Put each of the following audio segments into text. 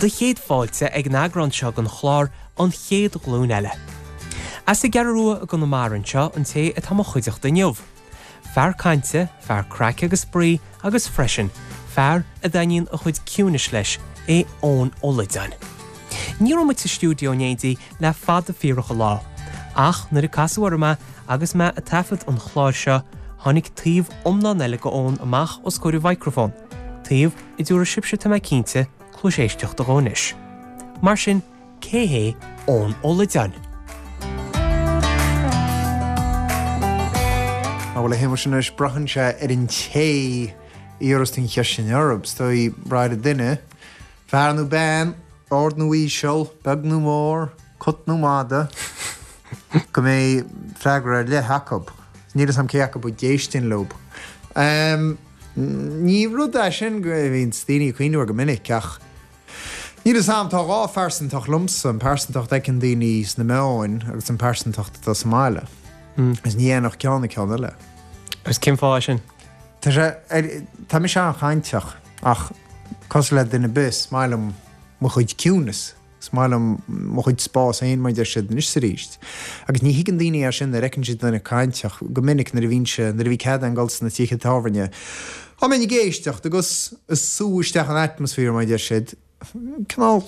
Do chéad fáilte ag an eagrán seo den chlár An Chéad Ghlúin Eile. As an gCeathrú Rua i gConamara anseo an té atá mo chuideachta inniu. Fear cainte, fear craic agus spraoi agus freisin, fear a dtaitníonn a chuid ciúinis leis é Eoin Ó Loideáin. Ní raibh muid sa stiúideo in éindí le fada fíorach an lá, ach nuair a casadh orm é agus mé ag taifead an chláir seo, tháinig taobh iomlán eile de Eoin amach os comhair an mhicreafóin, taobh a dtabharfaidh sibhse, tá mé cinnte, cluas éisteachta dhó anois. Mar sin, cé hé Eoin Ó Loideáin? Á bhuel a Shéamuis anois, braitheann sé ar an té a iarras tú an cheist sin orthu. Is dóigh, brath ar an duine, fear nó bean, ard nó íseal, beag nó mór, cat nó mada, go mbeidh freagra ar leith acu. Níl 'fhios a'm cé acu a d'éistfinn leo. Ní rud é sin go mbíonn daoine ag cuimhniú air go minic ach níl 'fhios a'm, tá dhá phearsantacht liomsa, an pearsantacht a fheiceann daoine sna meáin agus an pearsantacht atá sa mbaile. Agus ní dhéanfadh ceann an ceann eile. Agus cén fáth é sin? Tá sé, tá mise an-chainteach ach cosúil le duine ar bith, is maith liom mo chuid ciúinis. Is maith liom mo chuid spás féin, mar a deir siad, anois is arís. Agus ní thuigeann daoine é sin nuair a fheiceann siad duine cainteach. Go minic nuair a bhínnse, nuair a bhí cead agam dul sna tithe tábhairne, dá mbeinn ag éisteacht agus ag sú isteach an atmaisféar, mar a deir siad, cineál,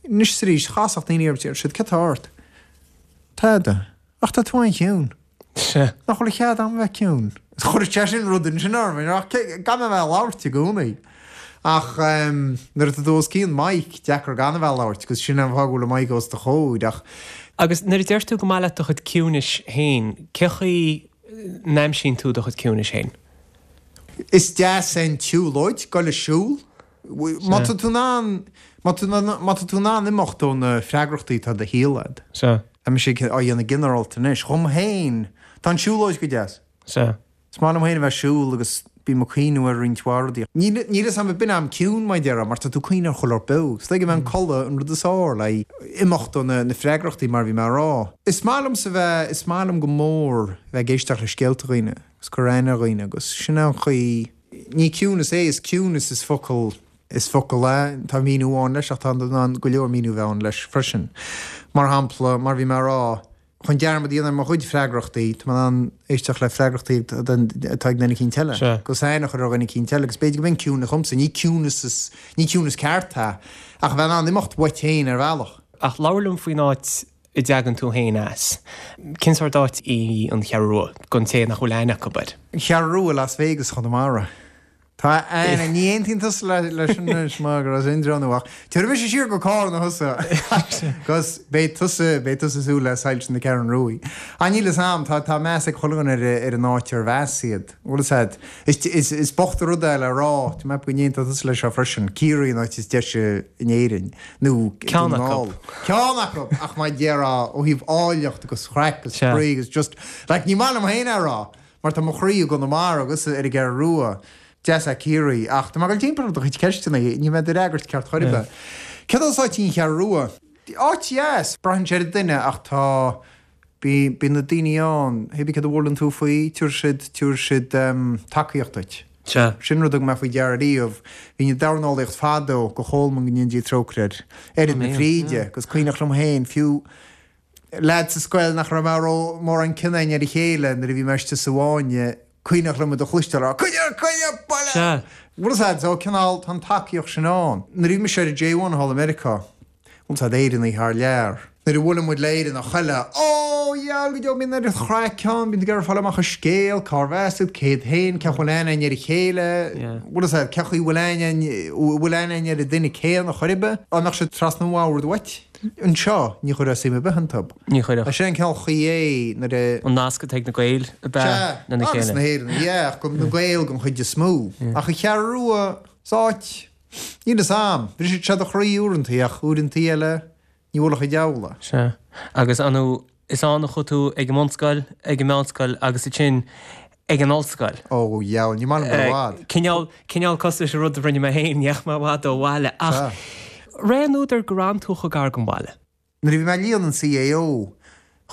anois is arís, chasfadh daoine orm, deir siad, céard tá ort? Tada. Ach tá tú an-chiúin. Sea. Nach bhfuil cead agam bheith ciúin? Chuir sé sin rud ansin orm, ach caithfidh mé bheith ag labhairt i gcónaí. Ach nuair atá tú os cionn mic, deacair gan a bheith ag labhairt, agus sin an fáth go bhfuil an mic os do chomhair, ach. Agus nuair a deir tú go maith leat do chuid ciúinis féin, cé chaoi n-aimsíonn tú do chuid ciúinis féin? Is deas é an tsiúlóid, goil ag siúl. Má tá tú in ann, má tá tú in ann imeacht ó na freagrachtaí atá i do shaol agat. Sea. Tá mise á dhéanamh ginearálta anois. Dhom féin, tá an tsiúlóid go deas. Sea. Is maith liom féin a bheith ag siúl agus bím ag cuimhniú ar roinnt mhaith rudaí. Níl 'fhios a'm, b'in am ciúin mar a déarfá, mar tá tú ag cuimhniú ar chuile shórt beo. Is dóigh go mbeidh an codladh an rud is fearr le imeacht ó na freagrachtaí mar a bhí mé a rá. Is maith liomsa bheith, is maith liom go mór bheith ag éisteacht le scéalta dhaoine agus cur aithne ar dhaoine agus sin é an chaoi, Ní ciúnas é, is ciúnas is focal, is focal é, tá míniú amháin leis ach tá in ann go leor míniú bheith ann leis freisin. Mar shampla, mar a bhí mé a rá, chun dearmad a dhéanamh ar mo chuid freagrachtaí, tá mé in ann éisteacht le freagrachtaí atá ag duine eicínt eile, agus aithne a chur ar dhuine eicínt eile agus b'fhéidir go mb'in ciúnas dhomsa, ní ciúnas is, ní ciúnas ceart é, ach a bheith in ann imeacht uait féin ar bhealach. Ach labhair liom faoin áit a dtagann tú féin as. Cén sórt áit í an Cheathrú Rua, don té nach bhfuil aithne acu air? An Cheathrú Rua, Las Vegas Chonamara. Tá aithne, ní aontaíonn tusa leis sin anois mar gur as Indreabhán thú ach tabharfaidh mise siar go Cárna thusa agus beidh tusa, beidh tusa ag súil le soilse na Ceathrún Ruaidh. Ach níl fhios a'm, tá, tá meas ag chuile dhuine ar, ar an áit arbh as iad. Bhfuil fhios a'd, is, is, is bocht an rud é le rá, tá mé ag ceapadh go n-aontóidh tusa leis seo freisin, Ciarraí an áit is deise in Éirinn. nó Ceann acu. Ceann acu! Ach mar a déarfá, ó thaobh áilleacht agus chraic agus spraoi agus just, like, ní maith liom féin é a rá, mar tá mo chroí i gConamara agus ar an gCeathrú Rua, deas é Ciarraí, ach tá mé ag dul timpeall ar do chuid ceisteanna, níl mé ag d'fhreagairt ceart chor ar bith. Céard as áit í an Cheathrú Rua? Áit dheas, braitheann sé ar an duine ach tá, Bíonn na daoine ann, hé bí céard a bhuaileann tú faoi, tabharfaidh siad, tabharfaidh siad tacaíocht duit. Sea. Sin rud a thug mé faoi deara riamh. Bhínn ag dornálaíocht fadó, go Cholmán go ndéana Dia trócaire air, Oiread na Fríde, agus cuimhneach liom féin, fiú leaid sa scoil nach raibh mé ró, mórán cion againn ar a chéile nuair a bhí mé istigh sa bhfáinne, cuimhneach liom iad a chloisteáil ag rá, Coinnigh, coinnigh, buile! Sea. Bhfuil fhios a'd, so cineál, tá an tacaíocht sin ann. Nuair a bhí mise ar an J1 thall i Meiriceá, Bhfuil fhios a'd, Éireannaigh thar lear. Nuair a bhuaileann muid le Éireannach eile, Ó, dheabhail go deo, bíonn oiread chraic ann, bíonn tú ag iarraidh fáil amach an scéal, cárbh as iad, cé hiad féin, cén chaoi a bhfuil aithne againn ar a chéile, bhfuil fhios a'd, cén chaoi a bhfuil aithne againn, bhfuil aithne againn ar an duine céanna chor ar bith. Dá mbeadh siad trasna an bhoird uait anseo, ní chuirfeá suim ar bith iontu. Ní chuirfeadh. Sin an cineál chaoi é nuair a. An nasc atá ag na Gaeil ab ea Sea, lena agus chéile. na hÉireannaigh, yeah, ach na Gaeil den chuid is mó. Ach an Cheathrú Rua, is áit. Níl fhios a'm. Briseann sé do chroí uaireantaí ach uaireantaí eile ní bhuailfeadh an diabhal é. Sea. Agus ar ndóigh, is ann a chuaigh tú ag an mbunscoil, ag an meánscoil agus ansin ag an ollscoil. Ó, dheabhail, ní maith liom dul i bhfad. Cineál, cineál cosúil leis an rud a rinne mé féin, ní dheachaigh mé i bhfad ó bhaile. Ach ré an údar gur fhan tú chomh gar don bhaile. Nuair a bhí mé ag líonadh an CAO,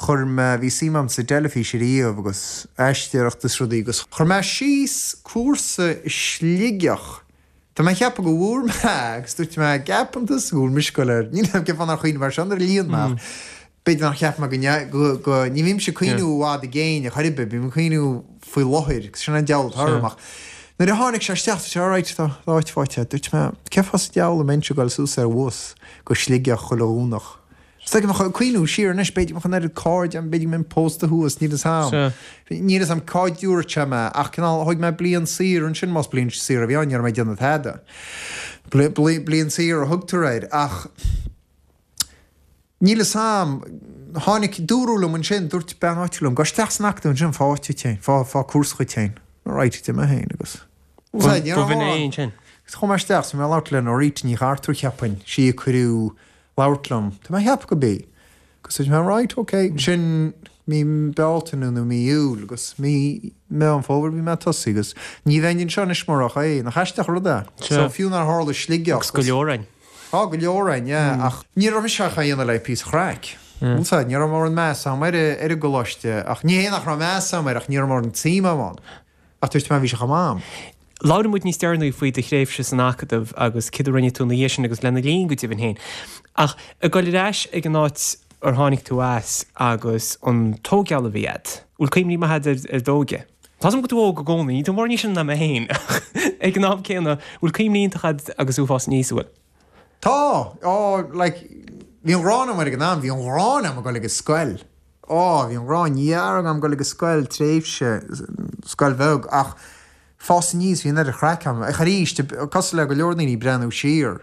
chuir mé, bhí suim agam sa dteilifís ariamh agus aisteoireacht is rudaí agus chuir mé síos cúrsa i Sligeach. Tá mé ag ceapadh go bhfuair mé agus dúirt mé, gceapann tusa go bhfuil mise ag goil ar, níl 'fhios a'm cén fáth nár chuimhnigh mé air seo nuair a líon mé ach b'fhéidir nár cheap mé go, go, ní bhímse ag cuimhniú i bhfad i gcéin ar chor ar bith, bím ag cuimhniú faoi láthair agus sin an diabhal atá orm ach nuair a tháinig sé isteach dúirt sé alright tá áit faighte agat, dúirt mé cén fáth sa diabhal a mbeinnse ag goil suas ar bhus go Sligeach chuile Dhomhnach. Is dóigh go mbeadh, cuimhniú siar anois, b'fhéidir go mbeadh an oiread cairde agam, b'fhéidir go mbeinn pósta thuas, níl 'fhios a'm. Níl 'fhios a'm cá dtabharfadh sé mé, ach cineál, thóg mé bliain saor ansin, más bliain saor a bhí ann, ní raibh mé ag déanamh tada. Bliain saor a thugtar air, ach níl 'fhios a'm, tháinig, dúradh liom ansin, dúirt bean áitiúil liom, gabh isteach san acadamh ansin, faigh áit duit féin, faigh, faigh cúrsa dhuit féin. Right, d'imigh mé féin agus. B'in é ansin. Chuaigh mé isteach, 's bhí mé ag labhairt le Norita Ní Chartúir, cheapfainn, sí a cuireadh labhairt liom. Tá mé ag ceapadh go b'í. Agus dúirt mé right, ok. Sin mí Bealtaine nó mí Iúil agus mí Meán Fómhair bhí mé ag tosaí agus ní bheinn anseo anois murach é. Nach aisteach an rud é? So fiú nár tharla Sligeach. Agus go leor againn. Tá go leor againn, yeah. Ach ní raibh mise ach á dhéanamh le píosa chraic. Bhfuil 's a'd, ní raibh mórán meas a'm ar ar an gcoláiste ach ní hé nach raibh meas a'm air ach ní raibh mórán suim a'm ann. Ach dúirt mé, bhí sé chomh maith a'm. Labhróidh muid níos deireanaí faoi do thréimhse san Acadamh agus céard a rinne tú ina dhiaidh sin agus lena linn go deimhin féin. Ach ag dul ar ais ag an áit ar tháinig tú as agus an tóigeáil a bhí agat, bhfuil cuimhní maithe agat ar d'óige? Tá 's agam go bhfuil tú óg i gcónaí, níl tú mórán níos sine ná mé féin, ach ag an am céanna, bhfuil cuimhní iontacha agat agus tú ag fás aníos, an bhfuil? Tá! Á, like, bhí an ghráin agam air ag an am, bhí an ghráin agam ag dul ag an scoil. Á, bhí an ghráin dhearg agam dul ag an scoil, tréimhse, scoil bheag, ach fás aníos, bhí an oiread chraic agam. Ach arís, cosúil le go leor daoine, breathnú siar,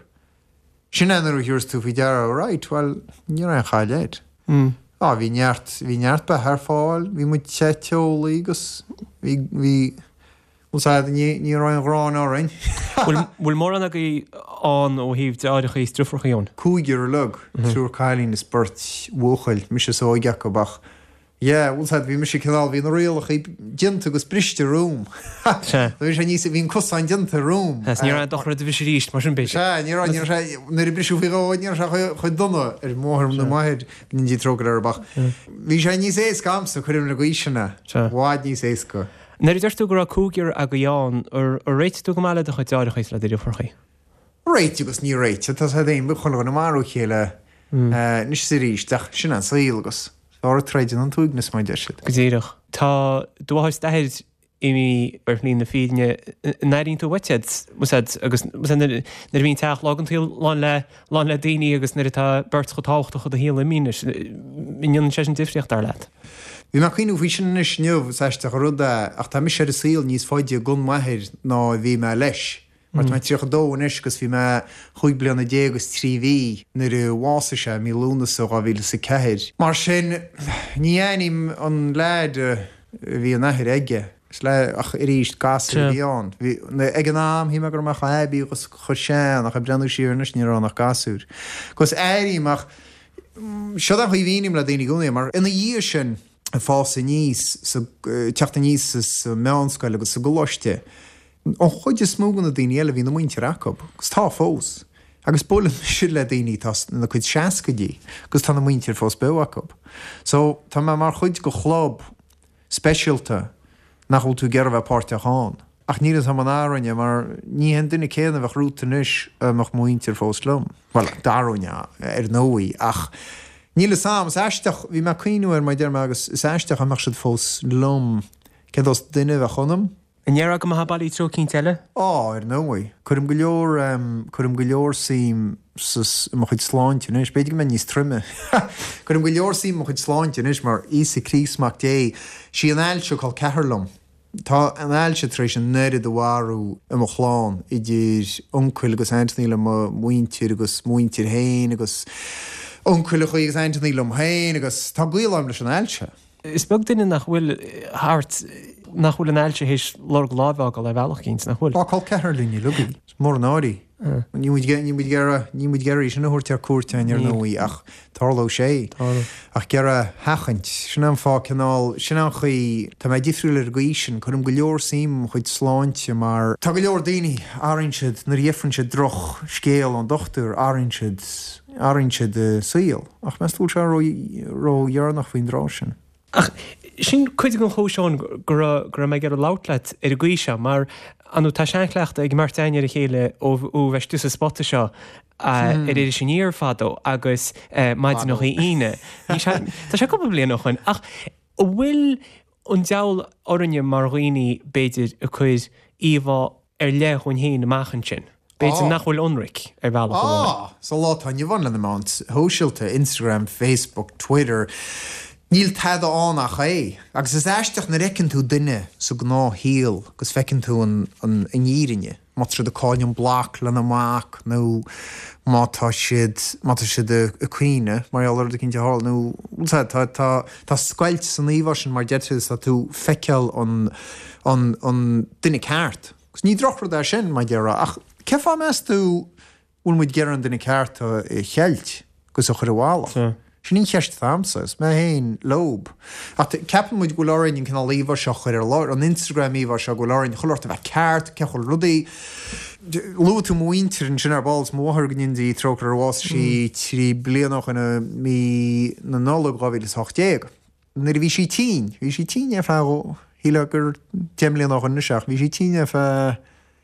sin é nuair a thabharfas tú faoi deara, right, bhuel, ní raibh aon chaill air. Á, bhí neart, bhí neart beatha ar fáil, bhí muid te teolaí agus bhí, bhí, Bhuel, sea, ní, ní raibh aon ghráin orainn. Bhfuil, bhfuil mórán agaibh ann ó thaobh deartháireacha is driofúracha ann? Cúigear uilig, triúr cailín is beirt bhuachaill, mise is óige acu ach, yeah, bhuel, sea, bhí mise cineál, bhí na rialacha déanta agus briste romham. Sea. Bhí sé níos, bhí an cosán déanta romham. Sea, ní raibh aon dochar do bhriseadh arís, mar sin b'fhéidir. Sea, ní raibh, ní raibh sé, nuair a briseadh faoi dhó, ní raibh sé chomh, chomh dona ar mo mháthair nó m'athair, go ndéana Dia trócaire orthu ach bhí sé níos éasca a'msa, cuirim le gaois sin é, i bhfad níos éasca. Nuair a deir tú go raibh cúigear agaibh ann, ar réitigh tú go maith le do chuid deartháireacha is le do dhriofúracha? Réitigh agus ní réitigh, tá siad féin, bíonn chuile dhuine ag marú a chéile anois is arís, ach sin an saol agus is fearr an troid ná an t-uaigneas mar a deir siad. Go díreach. Tá do mháthair is d'athair imithe ar shlí na fírinne, an airíonn tú uait iad, agus nuair a bhíonn teach logánta lán le lán le daoine agus nuair atá beirt chomh tábhachtach i do shaol imithe anois, an ndéanann sé sin difríocht, dar leat? Bhí mé ag cuimhniú faoi sin anois inniu, is aisteach an rud é, ach tá mise ar an saol níos faide gan m'athair ná a bhí mé leis. Mar tá mé 32 anois agus bhí mé chúig bliana déag agus trí mhí nuair a bhásaigh sé, mí Lúnasa 2004. Mar sin, ní aithním an leaid a bhí an athair aige. Is le, ach arís, gasúr a bhí ann. Bhí, ag an am, shíl mé go raibh mé chomh haibí agus chomh sean, ach ag breathnú siar anois, ní raibh ann ach gasúr. Agus airím, ach seod é an chaoi a mhíním le daoine i gcónaí, mar ina dhiaidh sin, ag fás aníos, sa, teacht aníos sa meánscoil agus sa gcoláiste, an chuid is mó de na daoine eile, bhí na muintir acu, agus tá fós. Agus buaileann mise le daoine atá ina cuid seascaidí, agus tá na muintir fós beo acu. So, tá mé mar chuid de chlub, speisialta nach bhfuil tú ag iarraidh a bheith páirteach ann. Ach níl 'fhios a'm an athróinn é mar ní hé an duine céanna a bheadh romhat anois dá mbeadh mo mhuintir fós liom. Bhuel, d'athróinn é, ar ndóigh, ach níl 'fhios a'm. Is aisteach, bhí mé ag cuimhniú air mar a deir mé agus is aisteach dá mbeadh siad fós liom, cén saghas duine a bheadh ionam. An ndéarfá go mbeifeá bailí treo eicínt eile? Á, ar ndóigh. Cuirim go leor, cuirim go leor suim sa, i mo chuid sláinte anois. B'fhéidir go mbeinn níos troime. Cuirim go leor suim i mo chuid sláinte anois mar Íosa Críost Mac Dé, sí an ailse col ceathar liom. Tá an ailse tar éis an oiread a mharú i mo chlann, idir uncail agus aintíní le mo mhuintir agus mo mhuintir féin agus uncaileachaí agus aintíní liom féin agus tá gaol agam leis an ailse. Is beag duine nach bhfuil thart nach bhfuil an ailse théis lorg láimhe a fhágáil ar bhealach eicínt, nach bhfuil? Tá col ceathrar linn uilig í. Is mór an náire í. Níl muid ag iarraidh, níl muid ag iarraidh í sin a thabhairt ar cuairt againn ar ndóigh ach tarlóidh sé. Ach ag iarraidh a sheachaint. Sin é an fáth cineál, sin é an chaoi, tá mé difriúil ar an gcaoi sin, cuirim go leor suim i mo chuid sláinte mar tá go leor daoine, athraíonn siad, nuair a gheibheann siad droch scéal ón dochtúir, athraíonn siad, athraíonn siad a saol. Ach meas tú bhfuil sé ró-dheireanach faoin dtráth sin? Ach sin cuid den chúis, Eoin, go raibh go raibh mé ag iarraidh labhairt leat ar an gcaoi seo, mar. Ar ndóigh, tá seanchleachtadh ag an mbeirt againn ar a chéile ó bheith istigh sa spota seo ar Iris Aniar fadó agus maidineacha Aoine. Tá sé cúpla bliain ó shoin. Ach an bhfuil an diabhal orainne mar dhaoine, b'fhéidir, ag cur íomhá ar leith dhúinn féin amach ansin? B'fhéidir nach bhfuil ionraic ar bhealach amháin. Á! Sa lá atá inniu ann le na meáin shóisialta, Instagram, Facebook, Twitter, níl tada ann ach é. Agus is aisteach nuair a fheiceann tú duine sa gnáthshaol agus feiceann tú an fhírinne, má tá siad ag cailleadh an bloc lena mac nó má tá siad, má tá siad ag caoineadh mar gheall ar rud eicínt a tharla nó, bhfuil a fhios agat, tá, tá, tá scoilt san íomhá sin mar deir tú is tá tú ag feiceáil an, an, an duine ceart. Agus ní drochrud é sin, mar déarfá, ach cén fáth meas tú bhfuil muid ag iarraidh an duine ceart a cheilt agus a chur i bhfolach? Sin an cheist atá a'msa, is mé féin leob. Ach ceapann muid go bhfuil orainn an cineál íomhá seo a chur ar lár, an Instagram íomhá seo, go bhfuil orainn chuile shórt a bheith ceart, cén chaoi rudaí. Luaigh tú mo mhuintir ansin ar ball, is mo mháthair go ndéana Dia trócaire uirthi, bhásaigh sí 3 bliana ó shoin i mí na Nollag 2018. Nuair a bhí sí tinn, bhí sí tinn ar feadh, shílfeá gur 10 mbliana ó shoin anois ach bhí sí tinn ar feadh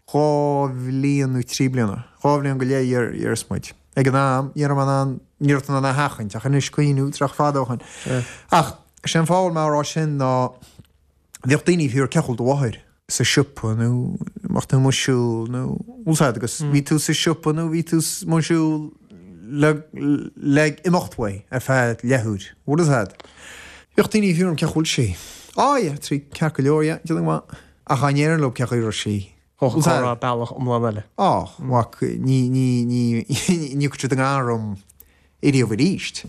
2 bhliain nó 3 bliana, 2 bhliain go leith déarfas muid. Ag an am, ní raibh mé in ann, ní raibh tú in ann é a sheachaint ach anois cuimhniú, tá sé fada ó shoin. Ach sé an fáth a bhfuil mé á rá sin ná bhíodh daoine ag fiafraí cén chaoi a bhfuil do mháthair sa siopa nó mbeadh tú amuigh ag siúl nó bhfuil a fhios agat agus bhí tú sa siopa nó bhí tú amuigh ag siúl le le imeacht uaidh ar feadh leathuair, bhfuil a fhios agat. Bhíodh daoine ag fiafraí cén chaoi a bhfuil sí. Á yeah, tá sí ceart go leor, yeah, déanamh go maith. Ach dá ndéarfainn leo cén chaoi a raibh sí. Thóg an comhrá bealach iomlán eile. Á, mhac, ní, ní, ní, ní thiocfadh siad i ngar dom ariamh aríst.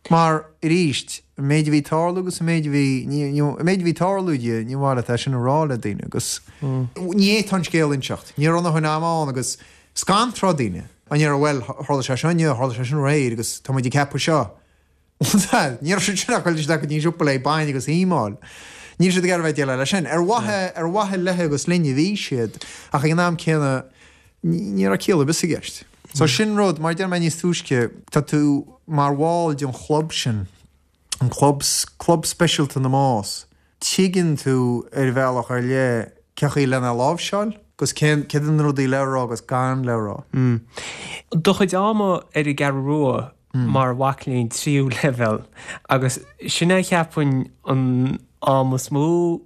Mar, aríst, an méid a bhí ag tarlú agus an méid a bhí, ní, ní, an méid a bhí ag tarlú di, ní mhaith leat é sin a rá le daoine agus ní fhéadfá an scéal a inseacht. Ní raibh a ndóthain ama ann agus scanródh daoine. An ndéarfá, bhuel, tharla sé seo inniu, tharla sé sin aréir agus tá muid ag ceapadh seo. Ní raibh siad sin ach ag dul isteach go dtí an siopa le bainne agus ime a fháil. Níl siad ag iarraidh bheith ag déileáil leis sin. Ar mhaithe, ar mhaithe léi agus linn a bhí siad, ach ag an am céanna, ní raibh ciall ar bith i gceist. So sin rud, mar a deir mé níos túisce, tá tú mar bhall den chlub sin, an club, club speisialta na mbás. Tuigeann tú ar bhealach ar leith cén chaoi lena láimhseáil agus cén, céard iad na rudaí le rá agus gan le rá. Do chuid ama ar an gCeathrú Rua mar mhac léinn tríú leibhéal agus sin é cheapfainn an am is mó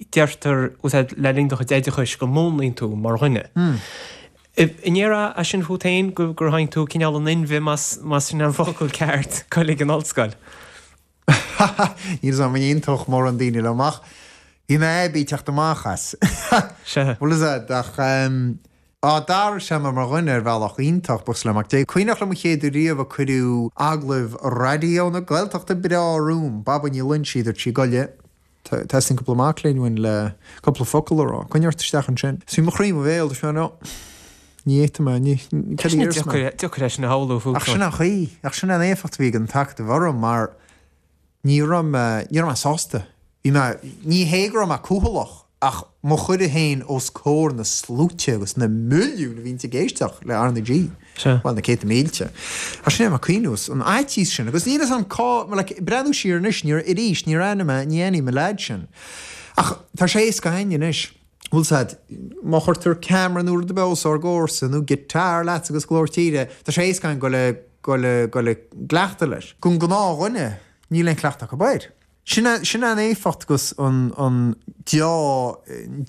deirtear le linn do chuid oideachais go múnlaíonn tú mar dhuine. An ndéarfá é sin fút féin gur tháinig tú cineál in inmhe más sin an focal ceart dul ag an ollscoil? Níl 'fhios a'm an aontódh mórán daoine liom ach bhí mé aibí teacht amach as. Sea. Bhfuil 'fhios a'd ach á d'athraigh sé mé mar dhuine ar bhealach iontach, buíochas le Mac Dé. Cuimhneach liom an chéad uair riamh a cuireadh agallamh Raidió na Gaeltachta breá romham, Baba Ní Loinsigh, dúirt sí, Gabh i leith, teastaíonn cúpla mac léinn uainn le cúpla focal a rá. Coinnigh ort isteach ansin. Is bhí mo chroí i mo bhéal, dúirt mé, no, ní fhéadfaidh mé, ní, cad a dhéarfas mé? Deacair é sin a shamhlú fút. Ach sin an chaoi, ach sin an éifeacht a bhí ag an t-acadamh orm mar ní raibh mé, ní raibh mé sásta. Bhí mé, ní hé go raibh mé cúthaileach ach mo chur féin os comhair na sluaite agus na milliúin a bhíonns ag éisteacht le R na G. Sea. Bhuel, na céadta mílte. Ach sin é mé ag cuimhniú an fhaitíos sin agus níl 'fhios a'm cá, like, breathnú siar anois, níor, arís, níor aithnigh mé, ní aithním an leaid sin. Ach tá sé éasca againn anois. Bhfuil 'fhios a'd, má chuirtear camera nó rud ar bith os ár gcomhair-sa nó guitar leat agus glór tíre, tá sé éasca againn goil a, goil a, goil i gcleachtadh leis. Don ghnáthdhuine, níl aon chleachtadh acu air. Sin é, sin é an éifeacht agus an, an deá,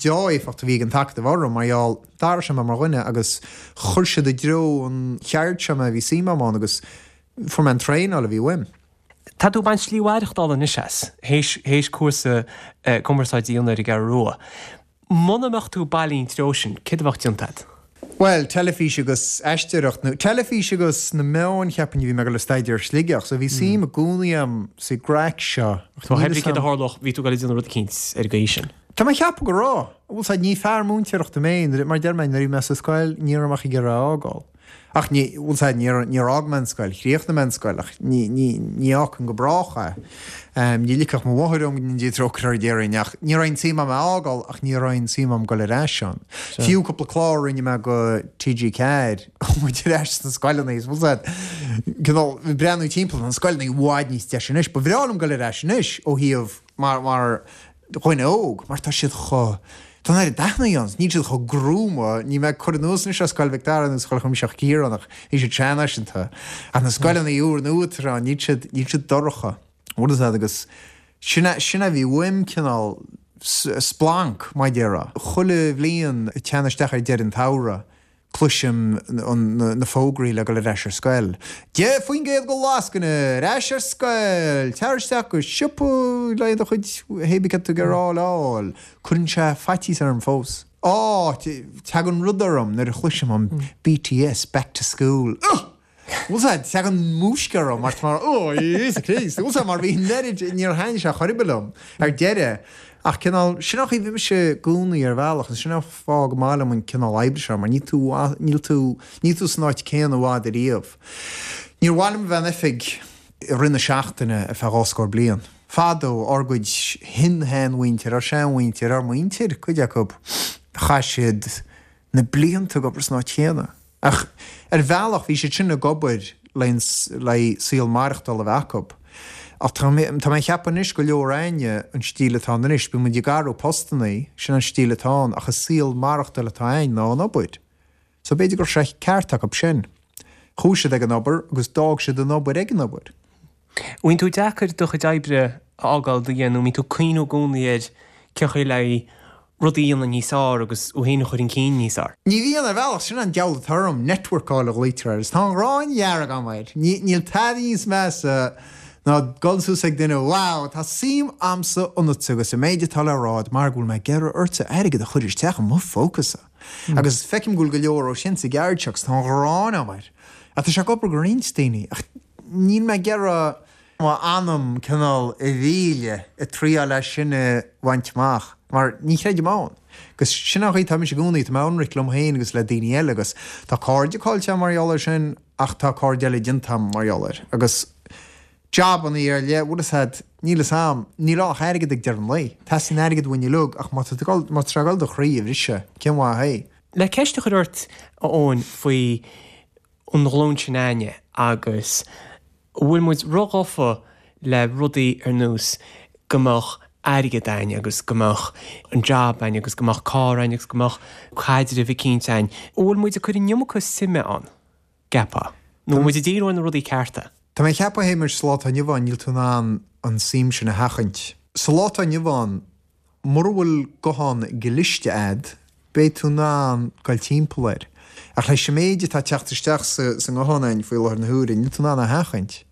deá-éifeacht a bhí ag an t-acadamh orm mar gheall, d'athraigh sé mé mar dhuine agus chuir siad i dtreo an cheird seo mé a bhí suim agam ann agus fuair mé an traenáil a bhí uaim. Tá tú ag baint slí mhaireachtála anois as, théis, théis cúrsa cumarsáide a dhéanamh ar an gCeathrú Rua. Muna mbeadh tú bailí an treo sin, céard a bheadh déanta agat? Bhuel, teilifís agus aisteoireacht, nó teilifís agus na meáin, cheapfainn, a bhí mé ag dul a staidéar i Sligeach, so bhí suim i gcónaí agam sa gcraic seo. So pé ar bith céard a tharlódh, bhí tú ag dul a déanamh rud eicínt ar an gcaoi sin. Tá mé ag ceapadh go raibh. Bhfuil 's a'd, ní fear múinteoireachta mé, mar a deir mé, nuair a bhí mé sa scoil, ní raibh mé ach ag iarraidh a fhágáil. Ach ní, bhfuil 's a'd, níor, níor fhág mé an scoil, chríochnaigh mé an scoil, ach ní, ní, ní fhágfainn go brách é. Ní ligfeadh mo mháthair dhom go ndéana Dia trócaire uirthi déarfainn, ach ní raibh aon tsuim a'm é a fhágáil, ach ní raibh aon tsuim a'm dul ar ais ann. Fiú cúpla clár a rinne mé go TG4, chuaigh muid ar ais sna scoileanna, is bhfuil 's a'd, cineál, breathnú timpeall, tá na scoileanna i bhfad níos deise anois, ba bhreá liom dul ar ais anois ó thaobh, mar, mar dhuine óg, mar tá siad chomh. Tá an oiread dathanna ann, níl siad chomh gruama, níl mé ag cur anuas anois ar Scoil Mhic Dara nó Scoil Chuimsitheach Chiaráin ach bhí siad seanfhaiseanta. Ach na scoileanna úr nua atá ann, níl siad, níl siad dorcha. Bhfuil fhios a'd agus sin é, sin é a bhí uaim cineál splanc, mar a déarfá. Chuile bhliain ag teannadh isteach ar deireadh an tsamhraidh, Cloisim na fógraí le dul ar ais ar scoil. 10% go lascaine! Ar ais ar scoil! Tar isteach go siopa le do chuid hébí cad tá tú ag iarraidh a fháil. Cuireann sé faitíos orm fós. Á! Tagann rud orm nuair a chloisim an BTS Back to School. Ugh! Bhfuil 's a'd, tagann múisc orm mar tá mar, oh, Íosa Críost, bhfuil 's a'd, mar bhí an oiread, níor thaitnigh sé chor ar bith liom ar deireadh, ach cineál, sin an chaoi a bhí mise i gcónaí ar bhealach, agus sin an fáth go maith liom an cineál oibre seo, mar níl tú, níl tú, níl tú san áit céanna i bhfad ariamh. Níor mhaith liom a bheith in oifig i rith na seachtaine ar feadh dhá scór bliain. Fadó, ár gcuid shin-sheanmhuintir, ár seanmhuintir, ár muintir, cuid acu, chaith siad na blianta ag obair san áit chéanna. Ach ar bhealach bhí siad sin ag obair le saol maireachtála a bheith acu. Ach tá mé tá mé ag ceapadh anois go leor againne an stíl atá ann anois, bíonn muid ag athrú postannaí, sin an stíl atá ann ach is saol maireachtála atá againn ná an obair. So b'fhéidir go raibh sé ceart acu sin. Chuaigh siad ag an obair agus d'fhág siad an obair ag an obair. Bhíonn tú deacair do chuid oibre a fhágáil do dhéanamh, mbíonn tú ag cuimhniú i gcónaí ar cén chaoi le rudaí a dhéanamh níos fearr agus thú féin a chur chun cinn níos fearr. Ní bhíonn, ar bhealach, sin an diabhal atá orm, networkáil a ghlaoitear air, is tá an ghráin dhearg agam air. Níl tada níos measa ná dul suas ag duine, wow, tá suim a'msa ionatsa agus sa méid atá le rá a'd mar go bhfuil mé ag iarraidh ortsa airgead a chur isteach i mo phócasa. Agus feicim go bhfuil go leor ó sin sa gceird seo agus tá an ghráin agam air. Ach tá sé ag obair go roinnt daoine, ach níl mé ag iarraidh m'anam cineál a mhilleadh ag triáil é sin a bhaint amach, mar ní chreidim ann. Agus sin an chaoi atá mise i gcónaí, tá mé ionraic liom féin agus le daoine eile agus tá cairde caillte agam mar gheall air sin ach tá cairde eile déanta agam mar gheall air. Agus jabannaí ar leith, bhfuil fhios a'd, níl fhios a'm, níl ann ach airgead ag deireadh an lae. Teastaíonn airgead uainn uilig ach má tá tú ag dul, má tá sé ag dul do chroí a bhriseadh, cén mhaith é? Le ceist a chur ort, a Eoin, faoi an ghlúin sin againne agus an bhfuil muid róghafa le rudaí ar nós go mbeadh airgead againn agus go mbeadh an jab againn agus go mbeadh carr againn agus go mbeadh caidreamh eicínt againn. An bhfuil muid ag cur an iomarca suime ann, gceapfá? Nó an bhfuil muid ag díriú ar na rudaí cearta? Tá mé ag ceapadh, a Shéamais, sa lá atá inniu ann níl tú in ann an suim sin a sheachaint. Sa lá atá inniu ann, Mura bhfuil guthán cliste a'd, beidh tú in ann goil timpeall air. Ach leis an méid atá ag teacht isteach sa nguthán a'inn faoi láthair na huaire, níl tú in ann é a sheachaint.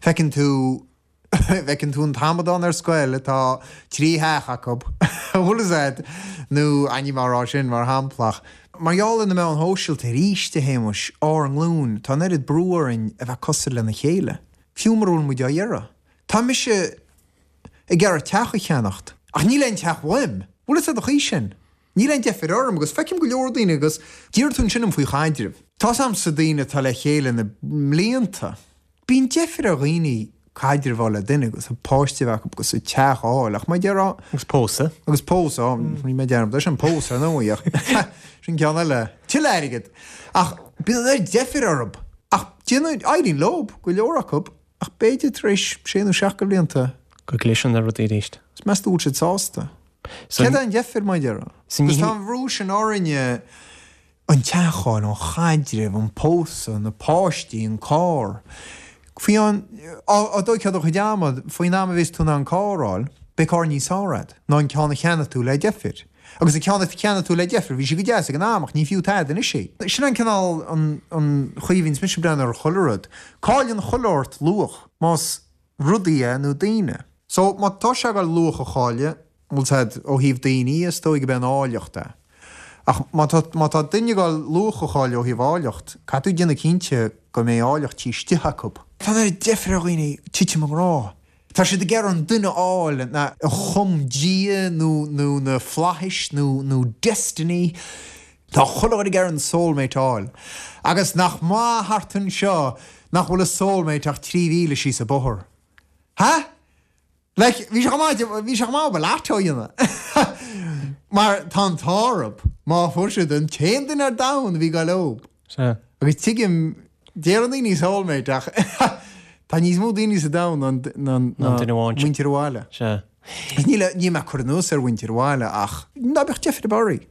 Feiceann tú, feiceann tú an t-amadán ar scoil atá trí theach acu, an bhfuil fhios a'd, nó níl mé á rá sin mar shampla ach, mar gheall ar na meáin shóisialta arís, a Shéamais, ár nglúin, tá an oiread brú orainn a bheith cosúil lena chéile, fiú mura bhfuil muid á iarraidh. Tá mise. ag iarraidh teach a cheannacht. Ach níl aon teach uaim. Bhfuil fhios a'd an chaoi sin? Níl aon deifir orm agus feicim go leor daoine agus d'iarr tú ansin orm faoi chaidrimh. Tá's a'msa daoine atá le chéile na mblianta. Bíonn deifir ar dhaoine caidreamh a fháil le duine agus páiste a bheith acu agus teach a fháil ach mar a déarfá. Agus pósadh. Agus pósadh, rinne mé dearmad ar sin, pósadh ar ndóigh ach sin ceann eile. Tuilleadh airgid! Ach bíonn an oiread deifir orthu. Ach déanann, éiríonn leo, go leor acu. Ach b'fhéidir tar éis sé nó seacht de bhlianta. Go gcliseann na rudaí arís. Is meas tú bhfuil siad sásta? Céard é an deifir, mar a déarfá? Agus tá an bhrú sin orainne, an teach a fháil, an chaidreamh, an pósadh, na páistí, an carr. Faoi an, á dtóigfeá do chuid ama, faoin am a bhéas tú in ann carr a fháil, beidh carr níos fearr agat ná an ceann a cheannaigh tú le deifir. Agus an ceann a cheannaigh tú le deifir, bhí sé go deas ag an am ach ní fiú tada anois é. Sin an cineál, an chaoi a bhíonns mise ag breathnú ar chuile rud. Cailleann chuile shórt luach, más rudaí é nó daoine. So, má tá sé ag dul luach a chailleadh, bhfuil 's a'd, ó thaobh daoine, is dóigh go b'é an áilleacht é. Ach má tá, má tá duine ag dul luach a chailleadh ó thaobh áilleacht, caithfidh tú déanamh cinnte go mbeidh áilleacht taobh istigh acu. Tá an oiread deifir ar dhaoine titim i ngrá. Tá siad ag iarraidh an duine a fháil a chum Dia nó nó na flaithis nó nó destiny. Tá chuile dhuine ag iarraidh an soulmate a fháil. Agus nach maith thart anseo nach bhfuil a soulmate ach 3,000 síos an bóthar. Ha? Like, bhí sé chomh maith, bhí sé chomh maith obair lotto a dhéanamh. Mar tá an t-ádh orthu má fuair siad an t-aon duine ar domhan a bhí ag goil leob. Sea. Agus tuigim, deireann daoine soulmate ach tá níos mó daoine sa domhan ná ná muintir an bhaile. Sea. Níl, níl mé ag cur anuas ar mhuintir an bhaile ach ná beadh deifir ar bith oraibh.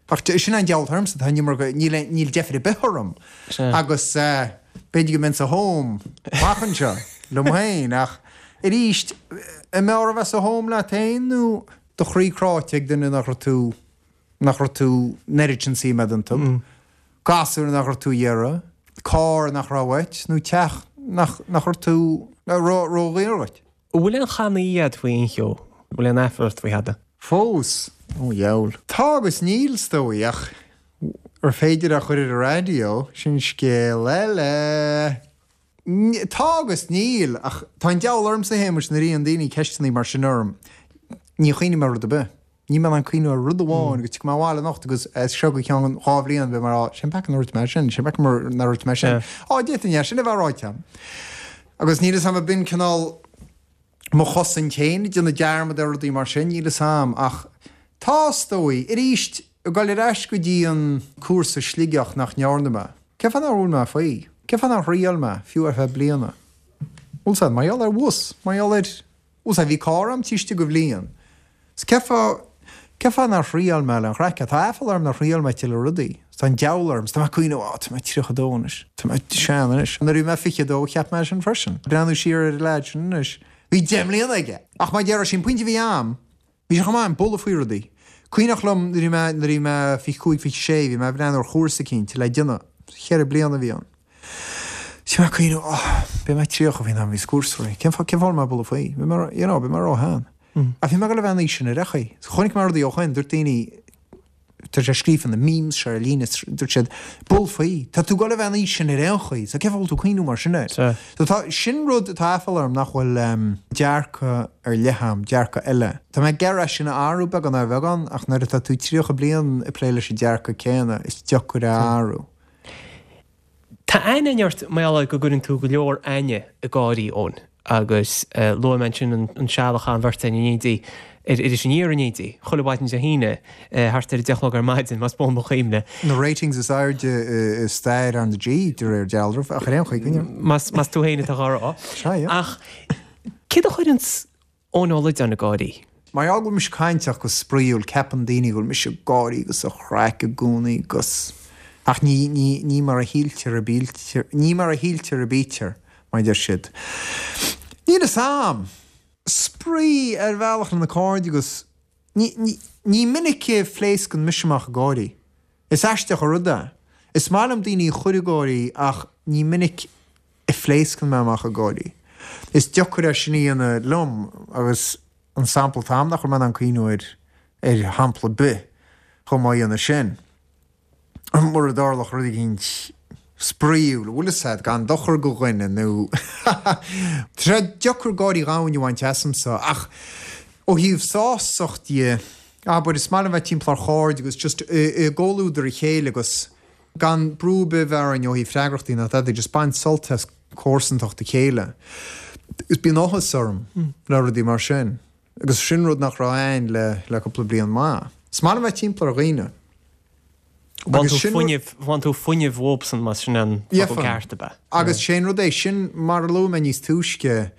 Ach sin an deabhal ormsa, tá an iomarca, níl, níl deifir ar bith orm. Agus b'fhéidir go mbeinn sa home amach anseo liom féin ach arís, an mb'fhearr a bheith sa home leat féin nó do chroí cráite ag duine nach raibh tú, nach raibh tú an oiread sin suim agat iontu, gasúr nach raibh tú a iarraidh, carr nach raibh uait nó teach nach, nach raibh tú, raibh ródhaor dhuit. An bhfuil aon channaí agat faoi aon cheo? An bhfuil aon aiféala ort faoi thada? Fós? Ó dheabhail. Tá agus níl, is dóigh, ach ar féidir é a chur ar an raidió, sin scéal eile. Tá agus níl, ach tá an deabhal ormsa, a Shéamuis, nuair a iarrann daoine ceisteanna mar sin orm, ní chuimhním ar rud ar bith. Níl mé in ann cuimhniú ar rud amháin agus tiocfaidh mé abhaile anocht agus as seo go ceann 2 bhliain beidh mé ag rá, cén peaca nár dhúirt mé sin, cén peaca nár dhúirt mé sin. Á, d'fhéadfainn é sin a bheith ráite agam. Agus níl 'fhios a'm ab in cineál mo chosaint féin, ag déanamh dearmad ar rudaí mar sin, níl 'fhios a'm ach tá, is dóigh. Arís, ag dul ar ais go dtí an cúrsa Sligeach nach ndearna mé. Cén fáth nár bhuail mé faoi? Cén fáth nár thriail mé, fiú ar feadh bliana? Bhfuil 'fhios a'd, mar gheall ar bhus, mar gheall ar. Bhfuil 'fhios a'd, bhí carr a'm taobh istigh de bhliain. 'S cén fáth, cén fáth nár thriail mé le an chraic? Tá aiféala orm nár thriail mé tuilleadh rudaí. 'S tá an deabhal orm. 'S tá mé ag cuimhneamh, á, tá mé 32 anois. Tá mé sean anois. Nuair a bhí mé 22, cheap mé sin freisin. Breathnú siar ar an leaid sin anois, bhí 10 mbliana aige! Ach mar a déarfá, sé an pointe a bhí a'm, bhí sé chomh maith a'm bualadh faoi rudaí. Cuimhneach liom nuair a bhí mé, nuair a bhí mé 25, 26, bhí mé ag breathnú ar chúrsa eicínt le déanamh. Cheithre bliana a bhí ann. Bhí mé ag cuimhneamh, oh, beidh mé 30 faoin am a bhíos cúrsa réidh. Cén fáth, cén fáth a bhfuil mé ag bualadh faoi? Beidh mé, you know, beidh mé ró-shean. Ach bhí mé ag dul a bheith an aois sin ar aon chaoi. So chonaic mé rudaí ó shoin, dúirt daoine, tá sé scríofa na memes seo ar líne, dúirt siad, buail faoi, tá tú ag dul a bheith an aois sin ar aon chaoi, so cén fáth a bhfuil tú ag cuimhneamh mar sin air? So tá, sin rud atá aiféala orm nach bhfuil dearcadh ar leith a'm, dearcadh eile. Tá mé ag iarraidh é sin a athrú beagán ar bheagán, ach nuair atá tú 30 bliain ag plé leis an dearcadh céanna, is deacair é a athrú. Tá aithne againn ort mar gheall ar go gcuireann tú go leor éinne ag gáirí, Eoin, agus luaigh mé ansin an seal a chaith an bheirt againn in éindí ar Iris Aniar in éindí, chuile mhaidin Dé hAoine, thart ar a deich a chlog ar maidin, más buan mo chuimhne. Na ratings is airde i stair R na G, de réir dealraimh, ach ar aon chaoi, coinneoidh. Más tú féin atá á rá. Sea, yeah. Ach céard a chuireanns Eoin Ó Loideáin ag gáirí. Mar gheall go bhfuil mise cainteach agus spraíúil ceapann daoine go bhfuil mise ag gáirí agus sa chraic i gcónaí agus. Ach ní, ní, ní mar a shíltear a bítear, ní mar a shíltear a bítear, mar a deir siad. Níl fhios a'm. Spraoi ar bhealach le na cairde agus ní, ní, ní minic a phléascann mise amach ag gáirí. Is aisteach an rud é. Is maith liom daoine a chur ag gáirí ach ní minic a phléascann mé amach ag gáirí. Is deacair é sin a dhéanamh liom agus an sampla atá a'm nach bhfuil mé in ann cuimhniú ar ar shampla ar bith chomh maith a dhéanamh sin. Mura dtarlódh rud eicínt spraíúil, bhfuil fhios a'd, gan dochar go dhuine nó tá sé deacair gáirí dhomhain a bhaint asamsa ach ó thaobh sásacht dhe, abair, is maith liom bheith timpeall ar chairde agus just i gcomhluadar a chéile agus Gan brú ar bith a bheith orainn ó thaobh freagrachtaí ná tada, just baint sult as comharsantacht a chéile. Agus bíonn áthas orm le rudaí mar sin. Agus sin rud nach raibh a'ainn le le cúpla bliain maith. Is maith liom bheith timpeall ar dhaoine. Bhain tú fuinneamh, bhain tú fuinneamh uathubsan más sin an focal ceart ab ea? Agus sé an rud é, sin mar a luaigh mé níos túisce,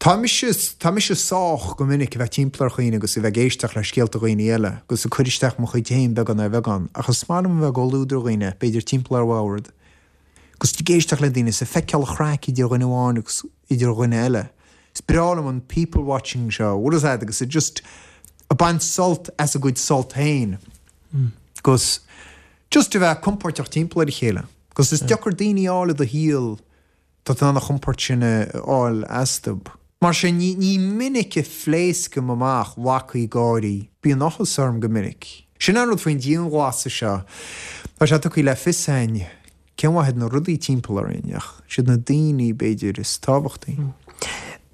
Tá mise, tá mise sách go minic a bheith timpeall ar dhaoine agus a bheith ag éisteacht le scéalta dhaoine eile agus ag cur isteach mo chuid féin beagán ar bheagán ach is maith liom a bheith i gcomhluadar dhaoine, b'fhéidir timpeall ar bhord, agus ag éisteacht le daoine is ag feiceáil an chraic idir dhuine amháin agus idir dhuine eile. Is breá liom an people watching seo, bhfuil fhios a'd, agus ag just ag baint sult as a gcuid sult féin agus just a bheith compóirteach timpeall ar a chéile agus is deacair daoine a fháil i do shaol Tá tú in ann an chompord sin a fháil astu. Mar sin, ní minic a phléascaim amach lacaí gáirí. Bíonn áthas orm go minic. Sin an rud faoin dianghlasáil seo. Tá sé tugtha le fios a'inn cén mhaith iad na rudaí timpeall orainn, ach siad na daoine, b'fhéidir, is tábhachtaí.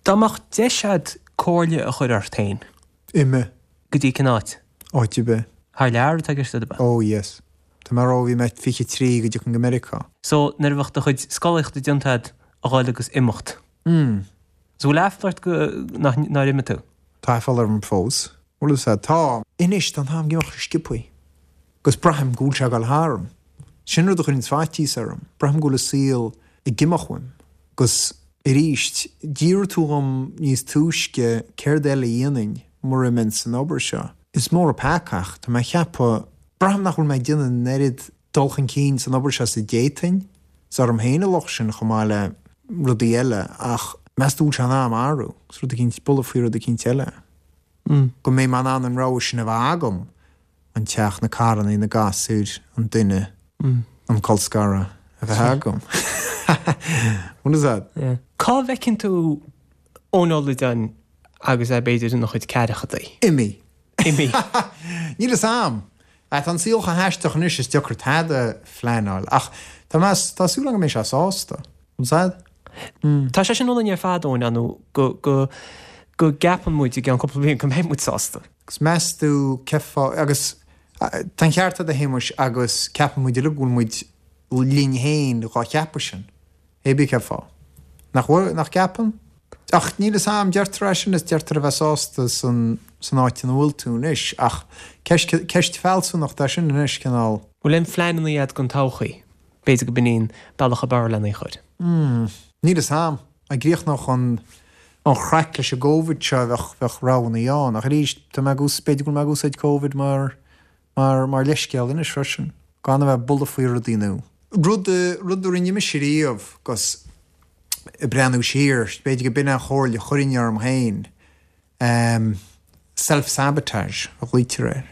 Dá mbeadh deis a'd comhairle a chur ort féin. Imigh. Go dtí cén áit? Áit ar bith. Thar lear atá i gceist a'd ab ea? Oh yes. Tá mé ag rá ó bhí mé 23 go dtiocfainn go Meiriceá. So nuair a bheadh do chuid scolaíochta déanta a'd a dhul agus imeacht. Mm. So bhfuil aiféala ort go, nach, nár imigh tú? Tá aiféala orm fós. Bhfuil fhios a'd. Tá. Anois tá an t-am ag imeacht go sciobthaí. Agus braithim go bhfuil sé ag dul tharam. Sin rud a chuireanns faitíos orm. Braithim go bhfuil an saol ag imeacht uaim. Agus. Arís, d'fhiafraigh tú dhom níos túisce céard eile a dhéanfainn mura mbeinn san obair seo. Is mór an peaca ach tá mé a cheapadh, braithim nach bhfuil mé ag déanamh an oiread dul chun cinn san obair seo is a d'fhéadfainn. Is orm féin an locht sin chomh maith le rudaí eile ach meas tú an bhfuil sé in am athrú agus rud eicínt, bualadh faoi rud eicínt eile? Go mbeidh mé in ann an rogha sin a bheith agam. an teach, na carrannaí, na gasúir, an duine, an colscaradh a bheith agam. What is that? Cá bhfeiceann tú Eoin Ó Loideáin agus é b'fhéidir ina chuid ceathrachaidí? Imithe. Imithe. Níl fhios a'm. Tá an saol chomh haisteach anois is deacair tada a phleanáil ach tá mé, tá súil agam go mbeidh sé sásta. What's that? Tá sé sin ionainn ar fad, Eoin, ar ndóigh, go, go, go gceapann muid i gceann cúpla bliain go mbeidh muid sásta. Agus meas tú cén fáth, agus tá an ceart agat a Shéamuis agus ceapann muid uilig go bhfuil muid linn féin dhá cheapadh sin, hé bith cén fáth. Nach bhfuil, nach gceapann? Ach níl fhios a'm, deirtear é sin is deirtear a bheith sásta san, san áit ina bhfuil tú anois ach ceist, ceist fealsúnachta é sin anois, cineál. Bhfuil aon phleananna agat don todhchaí? B'fhéidir go b'in í an bealach ab fhearr lena chur. Hmm, níl fhios a'm. Dá gcríochnódh an an chraic leis an gCovid seo bheadh bheadh roghannaí ann. Ach arís, tá mé ag ús b'fhéidir go bhfuil mé ag úsáid Covid mar mar mar leithscéal anois freisin. Gan a bheith ag bualadh faoi rudaí nua. Rud rud a rinne mise riamh 'gus ag breathnú siar, b'fhéidir go b'in an chomhairle a chuirfinn orm féin, Self-sabotage a ghlaoitear air.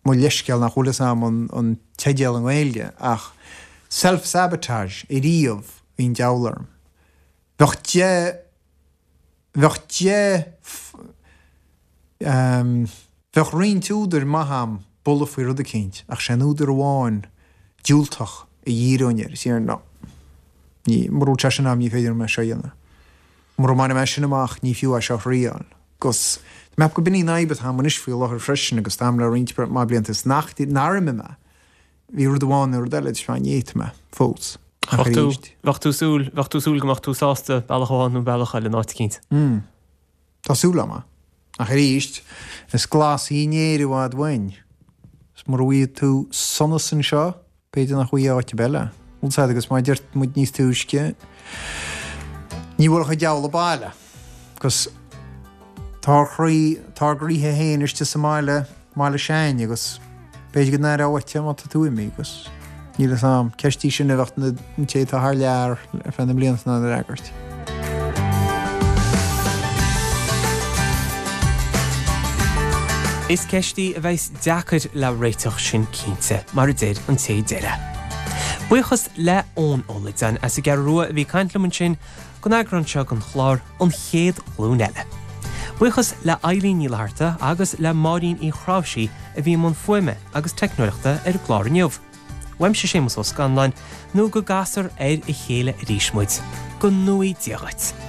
Mo leithscéal nach bhfuil fhios a'm an teideal i nGaeilge ach self-sabotage ariamh bhí an diabhal orm. Bheadh de, bheadh de, bheadh roinnt údair maith a'm bualadh faoi rud eicínt ach sé an údar amháin diúltach a dhíreoinn air is déarfainn no, ní, mura bhfuil sé sin a'm ní féidir liom é seo a dhéanamh. Mura mbainfidh mé sin amach, ní fiú é seo a thriáil. 'Gus tá mé ag ceapadh go b'in í an fhadhb atá a'm anois faoi láthair freisin agus tá a'm le roinnt mhaith blianta is nach, nár imigh mé. Bhí rud amháin nó rud eile, is ní fhéadfaidh mé fós. Ach Bheadh tú, bheadh tú súil, bheadh tú súil go mbeadh tú sásta bealach amháin nó bealach eile in áit eicínt. Mm. Tá súil a'm. Ach arís, is glas í an Éire i bhfad uainn. Is mura bhfaighidh tú sonas anseo, B'fhéidir nach bhfaighidh áit ar bith eile. Bhfuil 's a'd agus mar a deir muid níos túisce, ní bhuailfeadh an diabhal abhaile. Agus tá ár chroí, tá ár gcroíthe féin istigh sa mbaile, mbaile s'againne agus b'fhéidir go n-aireofá uait é má tá tú imithe agus níl fhios a'm, ceist í sin a bheadh an té atá thar lear ar feadh na mblianta in ann a fhreagairt. Is ceist í a bheas deacair le réiteach sin cinnte, mar a deir an té deir é. Buíochas le Eoin Ó Loideáin as an gCeathrú Rua a bhí ag caint liom ansin don eagrán seo den chlár An Chéad Ghlúin Eile. Buíochas le Eilín Ní Fhlatharta agus le Máirín Uí Chráimhsí a bhí i mbun fuaime agus teicneoireachta ar an gclár inniu. Uaimse Séamus Ó Scanláin, nó go gcasfar ar a chéile arís muid. Go ngnóthaí Dia dhuit.